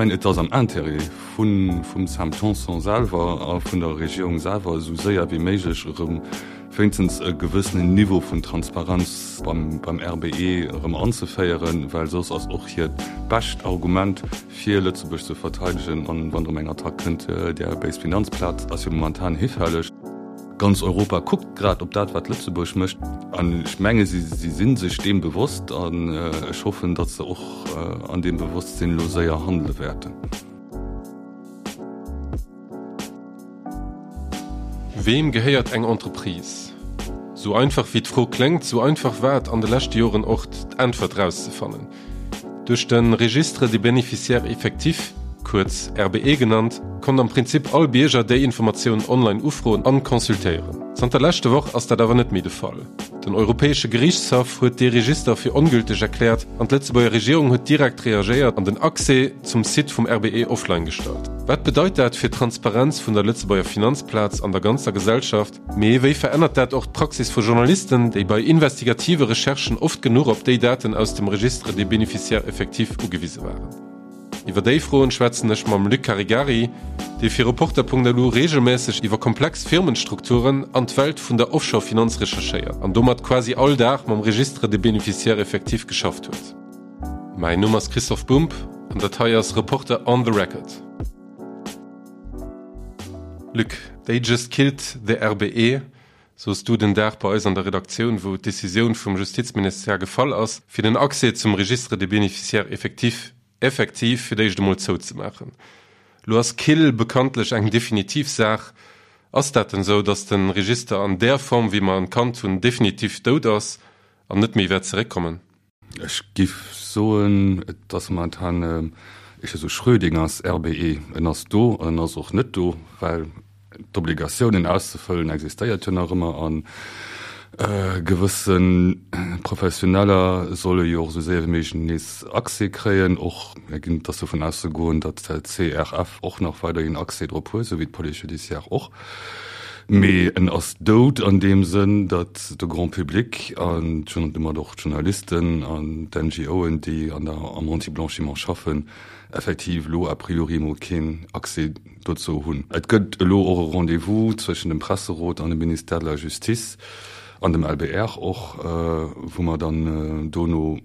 mengen, et ass am Intérêt vum Sam Tanson selwer a vun der Regierung selwer, esou séier wéi méiglech erëm wéinstens e gewëssenen Niveau vun Transparenz beim RBE erëm anzeféieren, well soss ass och hiert bescht Argument, fir Lëtzebuerg ze verteidegen, an wann erëm eng Attack kënnt, där béis Finanzplaz ass jo momentan hifälleg. Ganz Europa kuckt grad op dat, wat Lëtzebuerg mécht, an ech menge si si sech deem bewosst an ech hoffen, datt se och an deem Bewosstsinn elo séier handele wäerten. Weem gehéiert eng Entreprise? Sou einfach wéi d'Fro kléngt, sou einfach war et an de leschte Joren och d'Äntwert rauszefannen. Duerch de Registre des bénéficiaires effectifs, kuerz RBE genannt, konnt am Prinzip all Bierger déi Informatioun online ufroen an consultéieren. Zanter leschte Woch ass dat awer net méi de Fall. Den Europäesche Geriichtshaff huet dee Register fir ongülteg erkläert an d'Lëtzebuerger Regierung huet direkt reagéiert an den Accès zum Site vum RBE offline gestallt. Wat bedeit dat fir d'Transparenz vun der Lëtzebuerger Finanzplaz an der ganzer Gesellschaft? Mee wéi verännert dat och d'Praxis vu Journalisten, déi bei investigative Recherchen oft genuch op déi Daten aus dem Registre des bénéficiaires effectifs ugewise waren? Iwwer déi Froen schwätzen ech mam Luc Caregari, dee fir Reporter.lu reegelmässeg iwwer komplex Firmenstrukturen an d'Welt vun der Offshore-Finanz recherchéiert an domat quasi all Dag mam Registre des bénéficiaires effectifs geschafft huet. Mäin Numm ass Christoph Bumb an dat hei ass Reporter on the Record. Luc, they just killed the RBE, soos du den Dag bei eis an der Redaktioun, wou d'Decisioun vum Justizministère gefall ass, fir den Accès zum Registre des bénéficiaires effectifs effektiv fir d'éischt emol zouzemaachen. Lo ass kill bekanntlech eng definitiv Saach. Ass dat denn sou, datt de Register an där Form, wéi mer en kannt hunn, definitiv dout ass an net méi wäert zeréckkommen? Ech giff soen, et ass momentan éischter sou Schrödingers RBE. En ass do an en ass och net do, well d'Obligatioun en auszefëllen existéiert jo nach ëmmer a gewësse Professioneller solle jo och esou séier wéi méiglech nees Accès kréien. Och et ass dovun auszegoen, datt d'CRF och nach weiderhin Accès drop huet, esou wéi d'Police judiciaire och. Mee en ass dout an deem Sënn, datt de Grand public an domat och d'Journalisten an d'NGOen, déi an der, am Anti-Blanchiment schaffen, effektiv elo a priori emol keen Accès dozou hunn. Et gëtt elo och e Rendez-vous zwëschen dem Presserot an dem Ministère de la Justice an dem LBR och, wou mer dann dono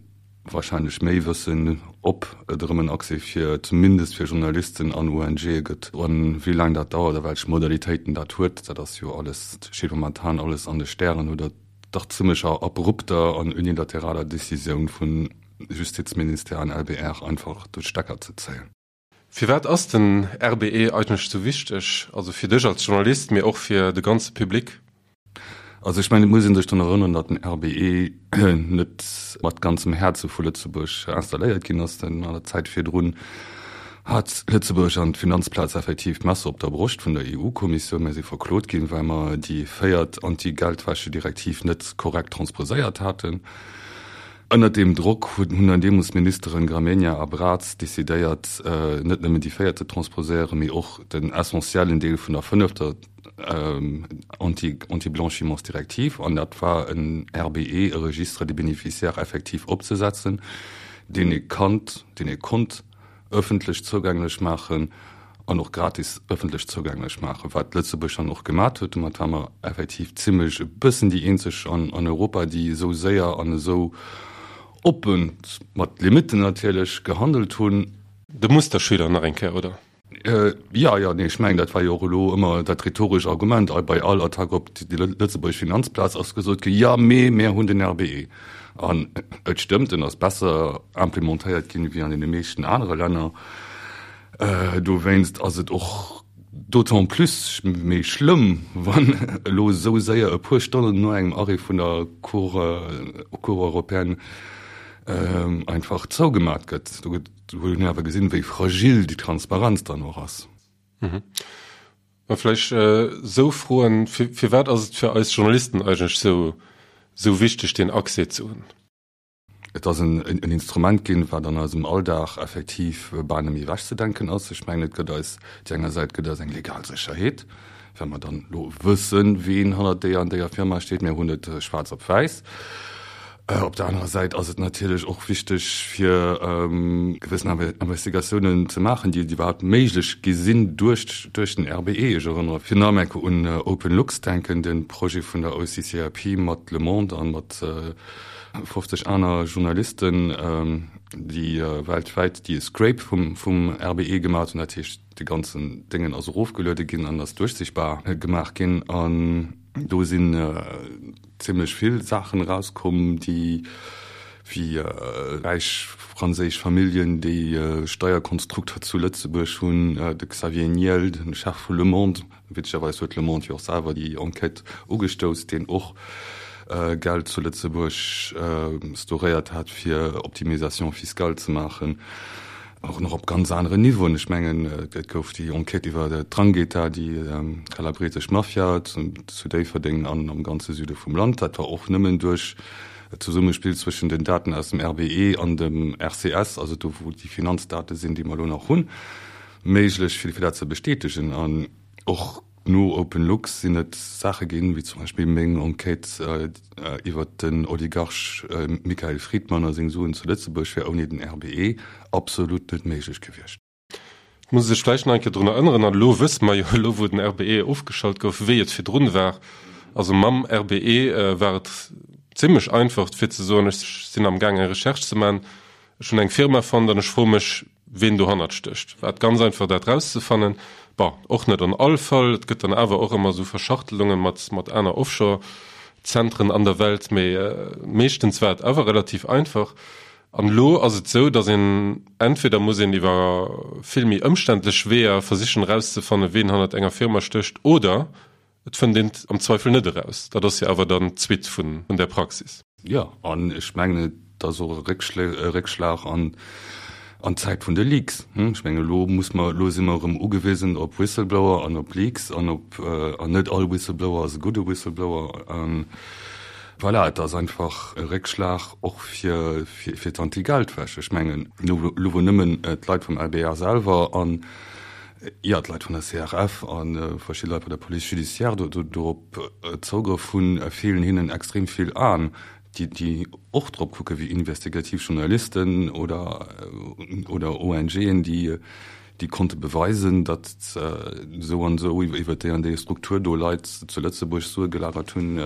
wahrscheinlech méi wëssen, ob et erëm en Accès fir zumindest fir Journalisten an ONGe gëtt. A wéi laang dat dauert a welch Modalitéiten dat huet, dat ass jo alles, steet momentan alles an de Stären no der dach zimmlecher abrupter an unilateraler Decisioun vun Justizministère an LBR einfach de Stecker ze zéien. Firwat ass den RBE eigentlech sou wichteg, also fir dech als Journalist, mee och fir de ganze Public? Also ech mengen, et muss ee sech drun erënneren, datt den RBE net mat ganzem Häerze vu Lëtzebuerg installéiert ginn ass. Denn an der Zäit virdrun hat Lëtzebuerg an d'Finanzplaz effektiv d'Messer op der Broscht vun der EU-Kommissioun. Mir si verklot ginn, well mer déi véiert Anti-Geldwäsche-Direktiv net korrekt transposéiert haten. Ënnert deem Drock hunn dann deemools d'Ministeren Gramegna a Braz decidéiert, net nëmmen déi véiert ze transposéieren, mee och den essentiellen Deel vun der fënnefter Anti-Blanchimentsdirektiv, an dat war en RBE, e Registre des bénéficiaires effectifs opzesetzen, deen ee kannt, deen ee konnt ëffentlech zougänglech maachen an och gratis ëffentlech zougänglech maachen, wat Lëtzebuerg dann och gemat huet. Domat ware mer effektiv zimlech e bëssen déi eenzeg an Europa, déi esou séier an esou oppen, mat Limitten natierlech, gehandelt hunn. De Musterschüler nach eng Kéier, oder? Jo, jo, nee, ech mengen, dat war jo och elo ëmmer dat rhetoresch Argument bei all Attack op déi lëtzebuergesch Finanzplaz ass gesot ginn, Jo, mee mir hunn den RBE. An et stëmmt, en ass besser implementéiert ginn wéi an deene meeschten anere Länner. Dowéinst ass et och d'autant plus méi schlëmm, wann elo esou séier e puer Stonnen no engem Arrêt vun der Cour, Cour européenne einfach zougemat gëtt. Do gëtt Do huet een awer gesinn, wéi fragil déi Transparenz dann och ass. Mhm. Mä vläicht esou Froen, Firwat ass et fir eis Journalisten eigentlech esou, esou wichteg, deen Accès ze hunn? Et ass en Instrument ginn, wat an eisem Alldag effektiv bal net méi ewechzedenken ass. Ech mengen, et gëtt eis, déi enger Säit gëtt eis eng legal Sécherheet, well mer dann elo wëssen, ween hannert déier an déier Firma steet. Mir hunn et schwaarz op wäiss. Op der anerer Säit ass et natierlech och wichteg, fir gewëssen Investigatiounen ze maachen, déi iwwerhaapt méiglech gi sinn duerch duerch den RBE. Ech erënnere fir nach eng Kéier un OpenLux denken, de Projet vun der OCCRP mat Le Monde a mat 50 aner Journalisten, déi weltwäit déi e Scrape vum vum RBE gemaach hunn. Dat heescht, de ganzen Déngen ass erofgeluede ginn an ass duerchsichtbar gemaach ginn. An do sinn zimlech vill Saachen erauskomm, déi wéi räich franséisch Familljen, déi Steierkonstrukter zu Lëtzebuerg hunn, de Xavier Niel, de Chef vu Le Monde, witzegerweis huet Le Monde jo och selwer déi Enquête ugestouss, deen och Geld zu Lëtzebuerg storéiert hat, fir Optimisation fiscale ze maachen. Och nach op ganz aneren Niveauen. Ech mengen, et gouf déi Enquête iwwer d'Drangheta, déi kalabresesch Mafia zu Déifferdeng an am ganze Süde vum Land. Dat war och nëmmen duerch d'Zesummespill zwëschen den Daten aus dem RBE an dem RCS, also do wou déi Finanzdate sinn, déi mer elo nach hunn, méiglech, fir dat ze bestätegen. An och No OpenLux sinn et Saache ginn, wéi zum Beispill meng Enquête iwwert den Oligarch Mikhail Fridman a seng Suen zu Lëtzebuerg wär ouni den RBE absolut net méiglech gewiescht. Et muss ee sech vläicht nach eng Kéier drun erënneren, an elo wësse mer jo, elo wou den RBE ofgeschalt gouf, wéi et virdrun war. Also mam RBE war et zimlech einfach fir ze soen, ech sinn amgaang eng Recherche ze maachen, ech hunn eng Firma fonnt an ech froe mech, ween dohannert stécht. War et ganz einfach dat rauszefannen? Bon, och net an all Fall, et gëtt dann awer och ëmmer esou Verschachtelunge mat mat aner Offshore-Zentren an der Welt, mee meeschtens war et awer relativ einfach. An elo ass et esou, datt een entweder muss een iwwer vill méi ëmständlech Weeër versichen erauszefannen, ween hannert enger Firma stécht, oder Et fënnt een et am Zweifel net eraus. Dat ass jo awer dann d'Suite vun där Praxis. Jo, an ech mengen, et ass och e Réckschlag an d'Zäit vun de Leaks. Ech mengen, elo muss mer, elo si mer erëm ugewisen op Whistleblower an op Leaks an op, an net all Whistleblower ass e gudde Whistleblower. Voilà, et ass einfach e Réckschlag och fir d'Anti-Geldwäsch. Ech mengen, elo wou nëmmen d'Leit vum LBR selwer an Jo, d'Leit vun der CRF a verschidde Leit bei der Police judiciaire dorop Zougrëff hunn, feelen hinnen extrem vill Aen, déi och drop kucken, wéi investigativ Journalisten oder ONGen, déi konnte beweisen, datt esou an esou iwwer déi an déi Struktur do Leit zu Lëtzebuerg Sue gelagert hunn,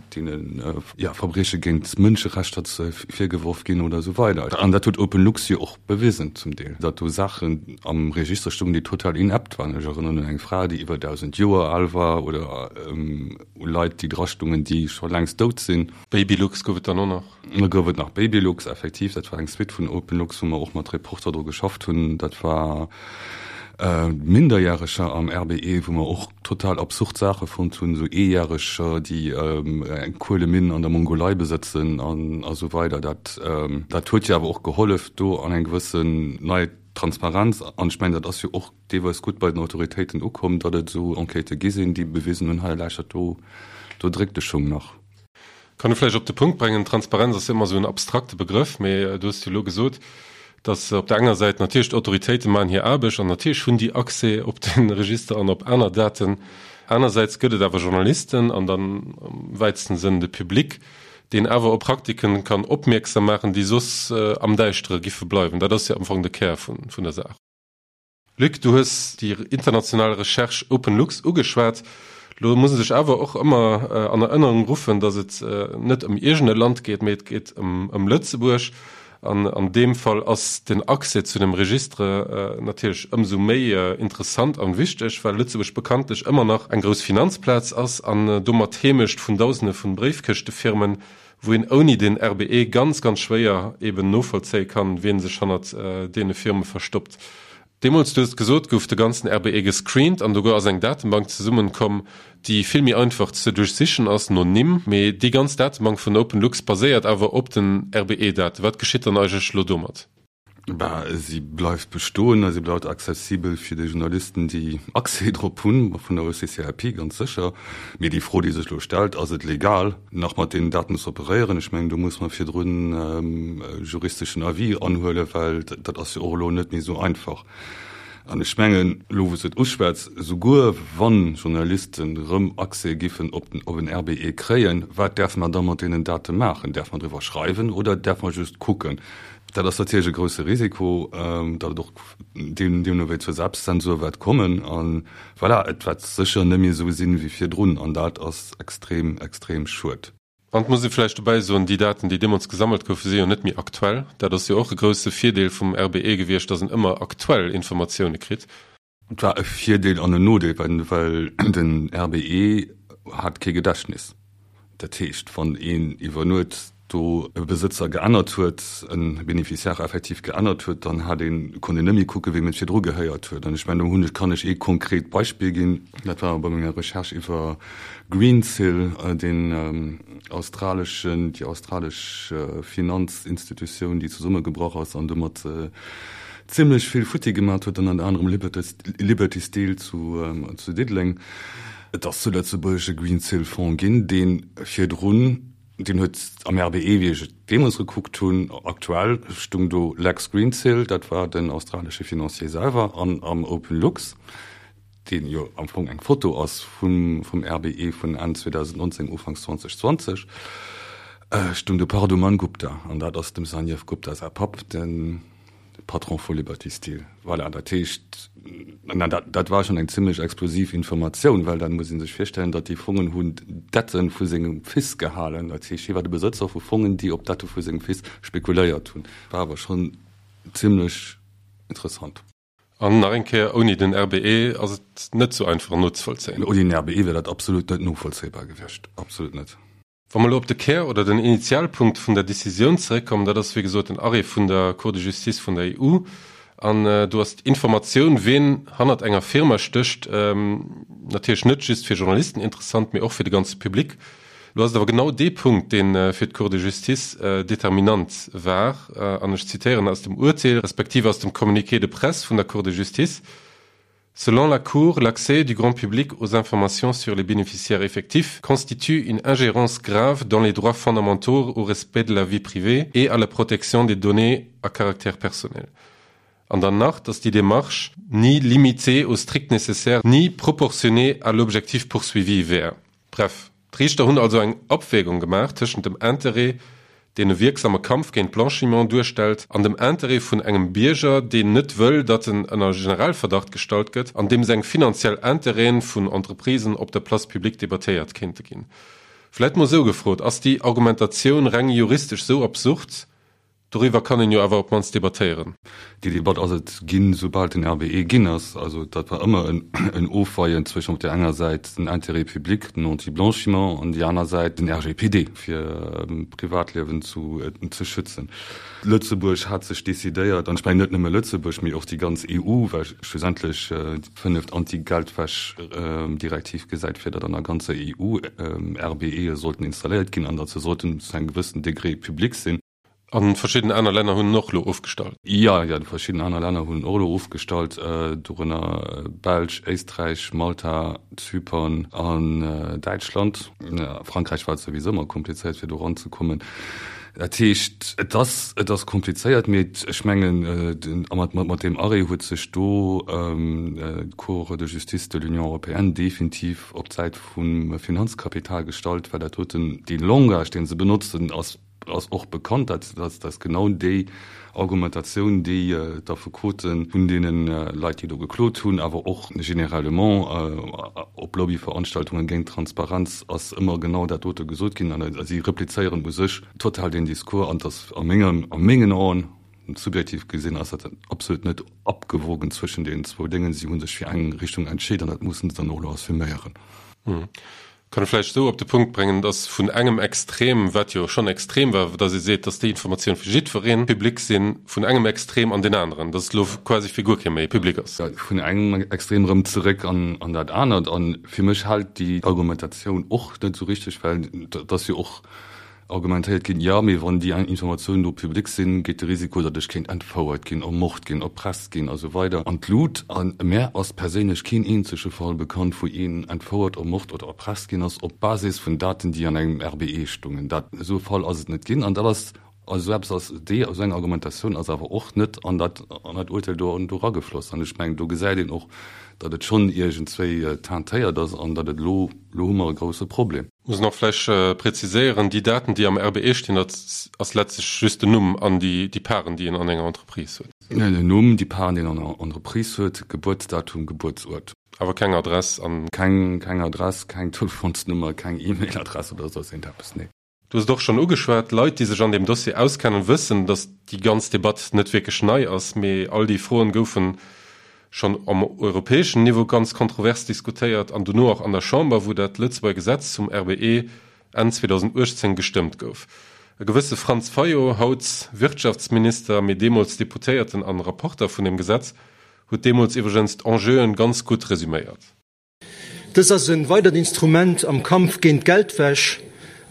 deene Verbrieche géint d'Mënscherechter virgeworf ginn oder esou weider. An dat huet OpenLux jo och Bewisen zum Deel, datt do Saachen am Register stungen, déi total inept waren. Ech erënneren un eng Fra, déi iwwer 1.000 Joer al war, oder u Leit, déi drastungen, déi scho längst dout sinn. Babylux gouf et dann och nach. Da gouf et nach Babylux, effektiv. Dat war eng Suite vun Openlux, wou mer och mat Reporter dru geschafft hunn. Dat war Minderjäreger am RBE, wou mer och total absurd Saache fonnt hunn, esou Eejäreger, déi eng Kueleminn an der Mongolei besëtzen an esou weider. Dat, dat huet jo awer och gehollef, do an eng gewëssen nei Transparenz, an ech mengen, dat ass jo och deelweis gutt bei den Autoritéiten ukomm, datt et esou Enquêtë gi sinn, déi bewisen hunn, hei lauschtert, do, do dréckt de Schung nach. Kann e vläicht op de Punkt brengen, Transparenz ass jo ëmmer esou en abstrakte Begrëff, mee du hues jo elo gesot, datt op der enger Säit natierlech d'Autoritéite maachen hir Aarbecht an natierlech hunn déi Accès op de Register an op aner Daten. Anersäits gëtt et awer Journalisten an dann am wäitsten Sënn de Public, deen awer op Praktiken kann opmierksam maachen, déi soss am Däischtere giffe bleiwen. Dat ass jo am Fong de Kär vun der Saach. Luc, du hues déi international Recherche OpenLux ugeschwat. Lo muss ee sech awer och ëmmer an Erënnerung ruffen, datt et net ëm iergend e Land geet, mee et geet ëm Lëtzebuerg. An an deem Fall ass den Accès zu dem Registre natierlech ëmsou méi interessant an wichteg, well Lëtzebuerg bekanntlech ëmmer nach eng grouss Finanzplaz ass an domat d'Heemecht vun Dausende vun Bréifkëschtefirmen, wou een ouni den RBE ganz, ganz schwéier eben novollzéie kann, wien sech hannert deene Firme verstoppt. Deemools, du hues et gesot, gouf de ganzen RBE gescreent an do ass eng Datebank zesummenkomm, déi vill méi einfach ze duerchsichen ass no Nimm. Mee déi ganz Datebank vun OpenLux baséiert awer op den RBE-Daten. Wat geschitt dann eigentlech elo domat? Bah, si bleift bestoen a si bleift accessibel fir déi Journalisten, déi Accès drop hunn, vun der OCCAP ganz sécher. Mee déi Fro, déi sech elo stellt, Ass et legal, nach mat deenen Daten ze operéieren? Ech mengen, do muss mer virdrun e juristeschen Avis anhuelen, well dat ass jo och elo net méi esou einfach. An ech mengen, elo wou s de et uschwätz, esouguer wann Journalisten erëm Accès giffen op den op en RBE kréien, wat däerfe mer da mat deenen Date maachen? Däerfe mer driwwer schreiwen oder däerfe mer just kucken? Dat ass natierlech e grousse Risiko, datt et och deemno wéi zur Selbstzensur wäert kommen. A voilà, et wäert sécher net méi esou sinn wéi virdrun an dat ass extrem, extrem schued. An et muss ee vläicht dobäi soen, déi Daten, déi deemools gesammelt goufen, si jo net méi aktuell. Dat ass jo och e grousse Virdeel vum RBE gewiescht, datt en ëmmer aktuell Informatioune kritt. Et war e Virdeel an en Nodeel, well den RBE hat kee Gedächtnis. Dat heescht, wann een iwwer Nuet do e Besëtzer geännert huet, e Bénéficiaire effektiv geännert huet, dann hat een, konnt een net méi kucken, weem et virdru gehéiert huet. An ech mengen, do hunn ech, kann ech ee konkret Beispill ginn, dat war bei menger Recherche iwwer Greensill, deen australeschen, déi australesch Finanzinstitutioun, déi zesummegebrach ass an domat zimlech vill futti gemat huet, ënnert anerem Liberty Steel zu Diddeleng. Et ass zu Lëtzebuerg e Greensill-Fonds ginn, dee virdrun, deen huet am RBE, wéi ech et deemools gekuckt hunn, aktuell stung do Lex Greensill, dat war den australesche Financier selwer, an am OpenLux, deen jo am Fong eng Foto ass vum RBE vun Enn 2019, Ufanks 2020, stung de Parduman Gupta, an dat ass dem Sanjeev Gupta säi Papp, de Patron vu Liberty Steel. Voilà, dat heescht, dat war schonn eng zimlech explosiv Informatioun, well dat muss ee sech virstellen, datt déi Fongen hunn d'Dette vu sengem Fils gehalen. Dat heescht, hie war de Besëtzer vu Fongen, déi op d'Dette vu sengem Fils spekuléiert hunn. War awer schonn zimlech interessant. An nach eng Kéier, ouni den RBE ass et net sou einfach nozevollzéien. Ouni den RBE wier dat absolut net novollzéibar gewiescht, absolut net. Wa mer elo op de Kär oder den Initialpunkt vun der Décisioun zeréckkommen, dat ass wéi gesot den Arrêt vun der Cour de justice vun der EU, an do ass d'Informatioun, wien hannert enger Firma stécht, natierlech net just fir Journalisten interessant, mee och fir de ganze Public. Lo ass et awer genau dee Punkt, dee fir d'Cour de justice determinant war, an ech zitéieren aus dem Urteel, respektiv aus dem Communiqué de presse vun der Cour de justice, Selon la Cour, l'accès du grand public aux informations sur les bénéficiaires effectifs constitue une ingérence grave dans les droits fondamentaux au respect de la vie privée et à la protection des données à caractère personnel. An dann nach, dass déi Démarche ni limitée au strict nécessaire ni proportionnée à l'objectif poursuivi wär. Bref, d'Riichter hunn also eng Abwägung gemaach tëschent dem Interêt, deen e wierksame Kampf géint Blanchiment duerstellt, an dem Interêt vun engem Bierger, deen net wëll, datt en ënner Generalverdacht gestallt gëtt an deem seng finanziell Interêten vun Entreprisen op der Place publique debattéiert kéinte ginn. Vläit mol esou gefrot, Ass déi Argumentatioun reng juristesch esou absurd, Doriwwer kann een jo awer op d'mannst debattéieren. Déi Debatt ass et ginn, soubal den RBE ginn ass. Also dat war ëmmer en Ofweien zwëschen op där enger Säit den Intérêt public, den Anti-blanchiment, an déi aner Säit den RGPD, fir d'Privatliewen ze schützen. Lëtzebuerg hat sech decidéiert, an ech mengen net nëmme Lëtzebuerg, mee och déi ganz EU, well schlussendlech déi fënneft Anti-Geldwäsch-Direktiv gesäit vir, datt an der ganzer EU RBEe sollten installéiert ginn an datt se sollten zu engem gewëssen Degré public sinn. A verschidden aner Länner hunn en och elo ofgestallt. Jo, jo, verschidden aner Länner hunn en och elo ofgestallt, dorënner Belsch, Éisträich, Malta, Zypern an Däitschland. A Frankräich war et souwisou ëmmer komplizéiert, fir do eranzekommen. Dat heescht, et ass, et ass komplizéiert, mee ech mengen, a mat, mat deem Arrêt huet sech do d'Cour de justice de l'Union européenne definitiv op d'Säit vum Finanzkapital gestallt, well dat doten, dee Langage, dee se benotzen, ass, ass och bekannt, dat ass genau déi Argumentatioun, déi d'Affekote vun deene Leit, déi do geklot hunn, awer och généralement op Lobbyveranstaltungen géint d'Transparenz ass ëmmer genau dat dote gesot ginn. An si replizéieren u sech total deen Discours. An et ass a mengem, a mengen Aen, subjektiv gesinn, ass dat absolut net abgewogen zwëschen deenen zwou Déngen. Si hu sech fir eng Richtung entscheet an dat mussen se dann och elo assuméieren. Kann e vläicht esou op de Punkt bréngen, dass vun engem Extrem, wat jo schonn extrem war, dass ee seet, dass déi Informatioun fir jiddweree public sinn, vun engem Extrem an deen aneren, dass et elo quasi fir guer kee méi public ass. Vun engem Extrem erëm zeréck an dat anert. A fir mech hält déi Argumentatioun och net esou richteg, well et ass jo och argumentéiert ginn, jo, mee wann déi Informatiounen do public sinn, geet de Risiko, datt ech kéint entfouert ginn, ermort ginn, erpresst ginn a sou weider an d'Lut. A mär ass perséinlech keen eenzege Fall bekannt, wou een entfouert, ermort oder erpresst ginn ass op Basis vun Daten, déi an engem RBE stungen. Dat, esou e Fall ass et net ginn. An dat ass. Also esou eppes ass, déi, esou eng Argumentatioun ass awer och net an dat, an dat Urteil do, do eragefloss. An ech mengen, do gesäit een och, datt et schonn iergendswéi teintéiert ass an datt et elo, elo hu mer e grouse Problem. Muss een och vläicht preziséieren, déi Daten, déi am RBE stinn, dat ass letztlech just den Numm an déi, déi Parten, déi een an enger Entreprise huet. Den Numm, déi Parten, déi een an enger Entreprise huet, Gebuertsdatum, Gebuertsuert. Awer keng Adress an. Keng, keng Adress, keng Telefonsnummer, keng E-Mail-Adress oder soss iergendeppes, nee. Du hues et och schonn ugeschwat, Leit, déi sech an deem Dossier auskennen, wëssen, datt déi ganz Debatt net wierklech nei ass, mee all déi Froen goufe schonn am europäeschen Niveau ganz kontrovers diskutéiert an dono och an der Chamber, wou dat Lëtzebuerger Gesetz zum RBE Enn 2018 gestëmmt gouf. E gewësse Franz Fayot, haut Wirtschaftsminister, mee deemools Deputéierten an Rapporter vun deem Gesetz, huet deemools iwwregens d'Enjeuen ganz gutt resüméiert. Dës ass e weidert Instrument am Kampf géint d'Geldwäsch.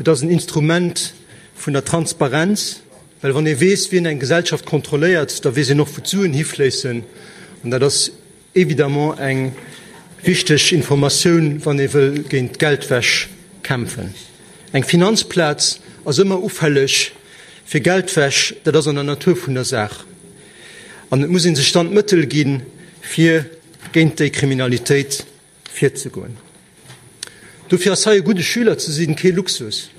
Et ass en Instrument vun der Transparenz, well wann ee weess, wien eng Gesellschaft kontrolléiert, da weess een och, wou d'Suen hifléissen. An dat ass évidemment eng wichteg Informatioun, wann ee wëll géint d'Geldwäsch kämpfen. Eng Finanzplaz ass ëmmer ufälleg fir Geldwäsch, dat ass an der Natur vun der Saach. An et muss ee sech dann d'Mëttel ginn, fir géint déi Kriminalitéit virzegoen. Dofir ass hei e gudde Schüler ze sinn kee Luxus,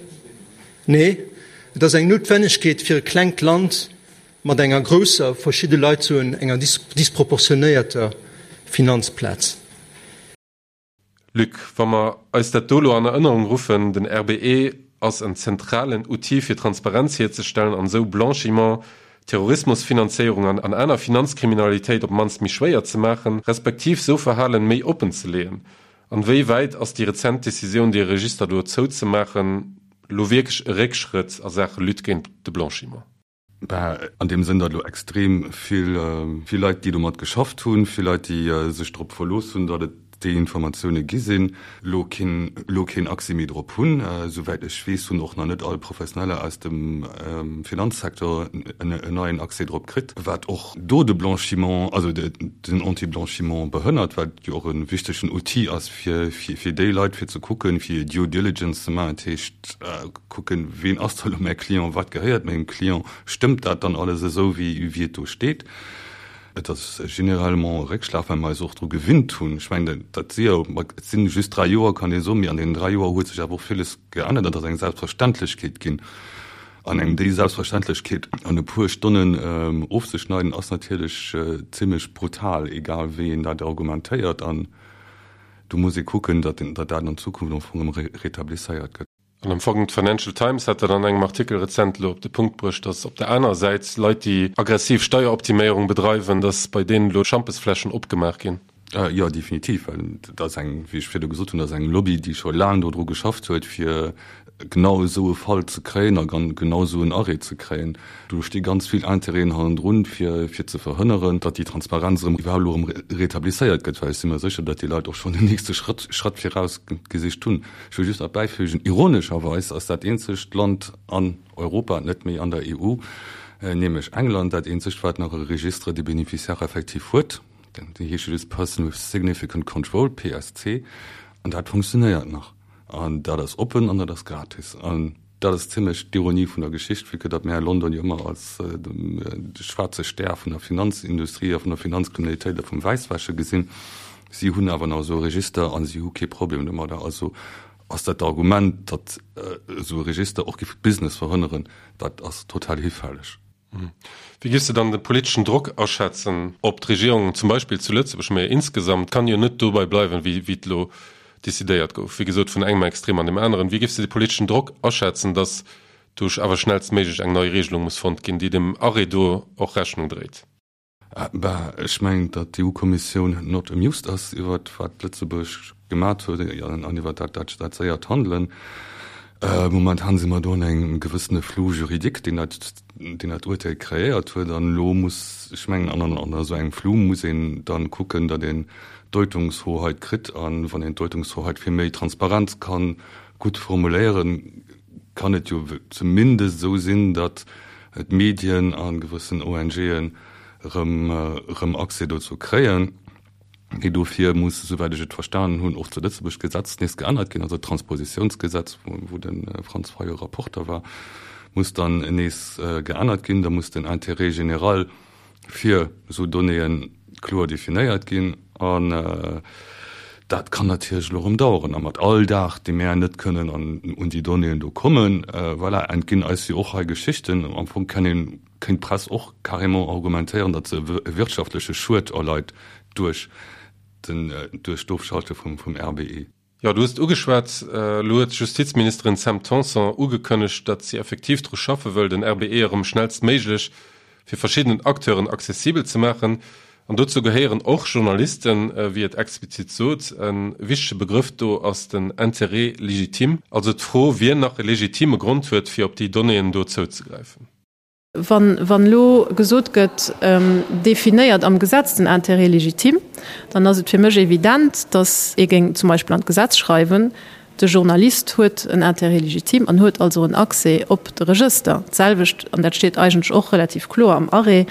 nee, et ass eng Noutwennegkeet fir e klengt Land mat enger grousser, verschidde Leit soen enger disproportionéierter Finanzplaz. Luc, wa mer eis dat do elo an Erënnerung ruffen, den RBE ass en zentralen Outil fir Transparenz hierzestellen an esou Blanchiment, Terrorismusfinanzéierung an an aner Finanzkriminalitéit op d'mannst méi schwéier ze maachen, respektiv sou Verhalen méi oppen ze leeën. An wéi wäit ass déi rezent Decisioun dee Register do zouzemaachen lo wierklech e Réckschrëtt a Saache Lutte géint de Blanchiment? Bah, an deem Sënn, datt elo extrem vill, vill Leit, déi domat geschafft hunn, vill Leit, déi sech drop verlooss hunn, datt et déi Informatioune gi sinn, elo keen, elo keen Accès méi drop hunn. Souwäit ech weess, hunn och nach net all Professioneller aus dem Finanzsecteur en neien Accès drop kritt, wat och do de Blanchiment, also den Anti-Blanchiment behënnert, wat jo och e wichtegen Outil ass fir, fir déi Leit, fir ze kucken, fir Due Diligence ze maachen, dat heescht kucken, ween ass da elo mäi Client, wat gehéiert mengem Client, stëmmt dat dann alles esou, wéi et do steet. Et ass généralement e Réckschlag, well mer eis och dru gewinnt hunn. Ech mengen, dat si jo, et si just dräi Joer, kann ee soen, mee an deenen dräi Joer huet sech awer och villes geännert an et ass eng Selbstverständlechkeet ginn. An engem déi Selbstverständlechkeet an e puer Stonnen ofzeschneiden, ass natierlech zimlech brutal, egal wéi een dat argumentéiert. An do muss ee kucken, datt dat an Zukunft am Fong erëm rétablisséiert gëtt. An am Fong, d'Financial Times hat dat an engem Artikel rezent elo op de Punkt bruecht, datt op der anerer Säit Leit, déi aggressiv Steieroptiméierung bedreiwen, datt bei deenen elo Schampesfläschen opgemaach ginn. Jo, definitiv, well dat ass eng, wéi ech virdu gesot hunn, dat ass eng Lobby, déi scho laang dodru geschafft huet, fir genau esou e Fall ze kréien a genau esou en Arrêt ze kréien. Do sti ganz vill Intérêten hannendrun, fir fir ze verhënneren, datt déi Transparenz erëm iwwerhaupt elo erëm rétablisséiert gëtt, well ech si mer sécher, datt déi Leit och schonn den nächste Schrëtt Schratt viraus gesicht hunn. Ech wëll just nach bäifügen, ironescherweis ass dat eenzegt Land an Europa, net méi an der EU, nämlech England, dat eenzegt, wat nach e Registre des bénéficiaires effectifs huet. Déi heesche just Person with Significant Control, PSC, an dat funktionéiert nach. An dat ass oppen an dat ass gratis. An dat ass zimlech d'Ironie vun der Geschicht, vue que datt mär London jo ëmmer als de schwaarze Stär vun der Finanzindustrie a vun der Finanzkriminalitéit a vum Wäisswäsche gesinn. Si hunn awer nach esou e Register a si hu kee Problem domadder. Also ass dat Argument, datt esou e Register och géif Business verhënneren, dat ass total hifälleg. Wéi giffs de dann de politeschen Drock aschätzen op d'Regierung, zum Beispill zu Lëtzebuerg, mä insgesamt kann jo net dobei bleiwen, wéi et elo decidéiert gouf, wéi gesot vun engem Extrem an deem aneren. Wéi giffs de de politeschen Drock aschätzen, datt do awer schnellstméiglech eng nei Regelung muss fonnt ginn, déi dem Arrêt do och Rechnung dréit? Bah, ech mengen, datt d'EU-Kommissioun not amused ass iwwert wat Lëtzebuerg gemat huet an iwwert dat dat séiert Handelen. Momentan si mer do an engem gewëssene Flou juridique, deen dat deen dat Urteel kreéiert huet. An elo muss, ech mengen, an an esou engem Flou muss een dann kucken, datt een Deutungshoheit kritt. An wann een d'Deutungshoheit fir méi Transparenz kann gutt formuléieren, kann et jo zumindest esou sinn, datt d'Medien a gewëssen ONGen erëm Accès dozou kréien. Mee dofir muss, esouwäit ech et verstanen hunn, och zu Lëtzebuerg d'Gesetz nees geännert ginn, also d'Transpositiounsgesetz, wou de Franz Fayot Rapporter war. muss dann nees geännert ginn. Da muss den Intérêt général fir esou Donnéeë kloer definéiert ginn. An dat kann natierlech elo erëm daueren. A mat all Dag, dee mär net kënnen un déi Donnéeën do kommen, voilà, entginn eis jo och hei Geschichten. Am Fong kann een, kéint d'Press och carrément argumentéieren, datt se e wirtschaftleche Schued erleit duerch den, duerch d'Ofschalte vum RBE. Jo, du hues et ugeschwat, elo huet d'Justizministerin Sam Tanson ugekënnegt, datt si effektiv dru schaffe wëll, den RBE erëm schnellstméiglech fir verschiddenen Acteuren accessibel ze maachen. An dozou gehéieren och Journalisten, wéi et explizit sot. E wichtege Begrëff do ass den Intérêt légitime, also d'Fro, wien nach e legitime Grond huet, fir op déi Donnéeën do zouzegräifen. Wann elo gesot gëtt, definéiert am Gesetz den Intérêt légitime, dann ass et fir mech evident, datt ee géing zum Beispill an d'Gesetz schreiwen, de Journalist huet en Intérêt légitime an huet also en Accès op de Regëster. D'selwecht, an dat steet eigentlech och relativ kloer am Arrêt,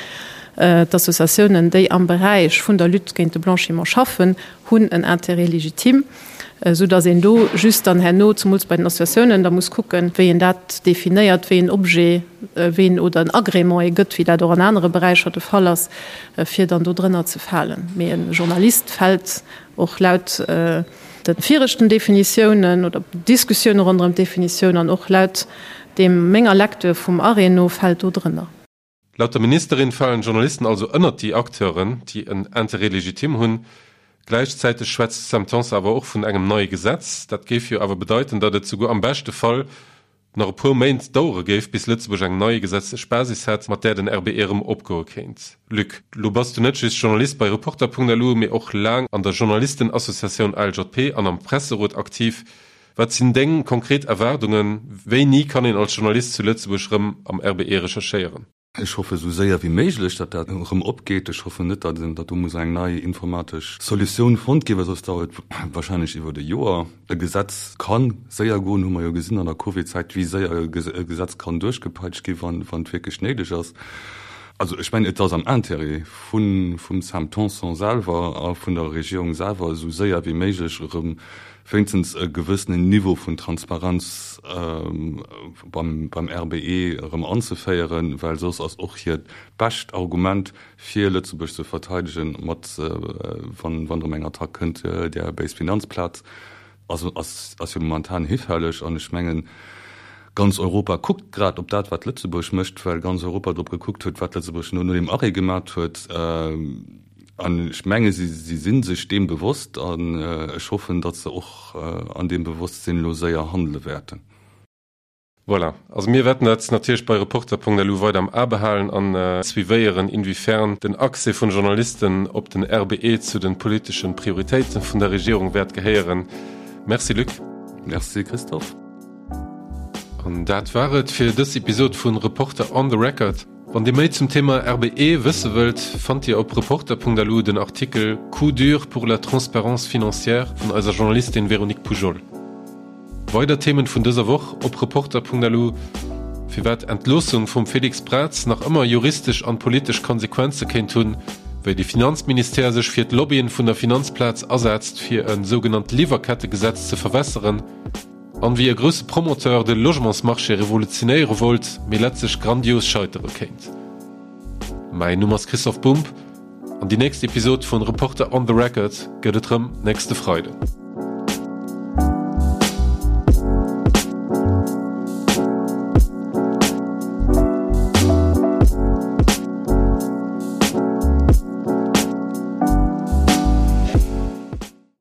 d'Associatiounen, déi am Beräich vun der Lutte géint de Blanchiment schaffen, hunn en Intérêt légitime. Esou datt een do just dann herno, zemools bei den Associatiounen, da muss kucken, wéi een dat definéiert, wéi een Objet, wéi een oder en Agrément ee gëtt, wéi dat och an anere Beräicher de Fall ass, fir dann do drënner ze falen. Mee e Journalist fält och laut de viregten Definitiounen oder Diskussioune ronderëm d'Definitioun an och laut deem menger Lecture vum Arrêt no fält do drënner. Laut der Ministerin falen d'Journalisten also ënnert déi Acteuren, déi en Intérêt légitime hunn. Gläichzäiteg schwätzt d'Sam Tanson awer och vun engem neie Gesetz. Dat géif jo awer bedeiten, datt et souguer am beschte Fall nach e puer Méint dauere géif, bis Lëtzebuerg eng nei gesetzlech Basis hätt, mat där den RBE erëm opgoe kéint. Luc, lo bass du net just Journalist bei Reporter.lu, mee och laang an der Journalistenassociatioun ALJP an am Presserot aktiv. Wat sinn deng konkret Erwaardungen? Wéini kann een als Journalist zu Lëtzebuerg rëm am RBE recherchéieren? Ech hoffe sou séier wéi méiglech, datt dat erëm opgeet. Ech hoffen net, datt do muss eng nei informatesch Solutioun fonnt ginn, well soss dauert et wahrscheinlech iwwert e Joer. E Gesetz ka séier goen, hu mer jo gesinn an der Covid-Zäit, wéi séier e Gesetz kann duerchgepeitscht ginn, wann et wierklech néideg ass. Also ech mengen, et ass am Intérêt vum Sam Tanson selwer a vun der Regierung selwer, esou séier wéi méiglech erëm wéinstens e gewëssenen Niveau vun Transparenz beim RBE erëm anzeféieren, well soss ass och hiert bescht Argument, fir Lëtzebuerg ze verteidegen, mat, wann erëm eng Attack kënnt, där béis Finanzplaz, ass jo momentan hifälleg. An ech mengen, ganz Europa kuckt grad op dat, wat Lëtzebuerg mécht, well ganz Europa drop gekuckt huet, wat Lëtzebuerg no deem Arrêt gemat huet. An ech menge si si sech deem bewosst an ech hoffen, datt se och an deem Bewosstsinn elo séier handele wäerten. Voilà, also mir wäerten dat natierlech bei Reporter.lu weider am A behalen an suivéieren, inwiefern den Accès vun Journalisten op den RBE zu den politeschen Prioritéiten vun der Regierung wäert gehéieren. Merci Luc. Merci Christophe. An dat war et fir dës Episod vun Reporter on the Record. Wann Dir méi zum Thema RBE wësse wëllt, fannt Dir op Reporter.lu den Artikel Coup dur pour la transparence financière vun eiser Journalistin Véronique Poujol. Weider Themen vun dëser Woch op Reporter.lu, Firwat Entloossung vum Félix Braz nach ëmmer juristesch an politesch Konsequenze kéint hunn, wéi de Finanzministère sech fir d'Lobbyen vun der Finanzplaz asetzt fir e sougenannt Liwwerkettegesetz ze verwässeren, An wéi e grousse Promoteur de Logementsmarché revolutionéiere wollt, mee letztlech grandios scheitere kéint. Mäin Numm ass Christoph Bumb an déi nächst Episod vun Reporter on the Record gëtt et rëm nächste Freiden.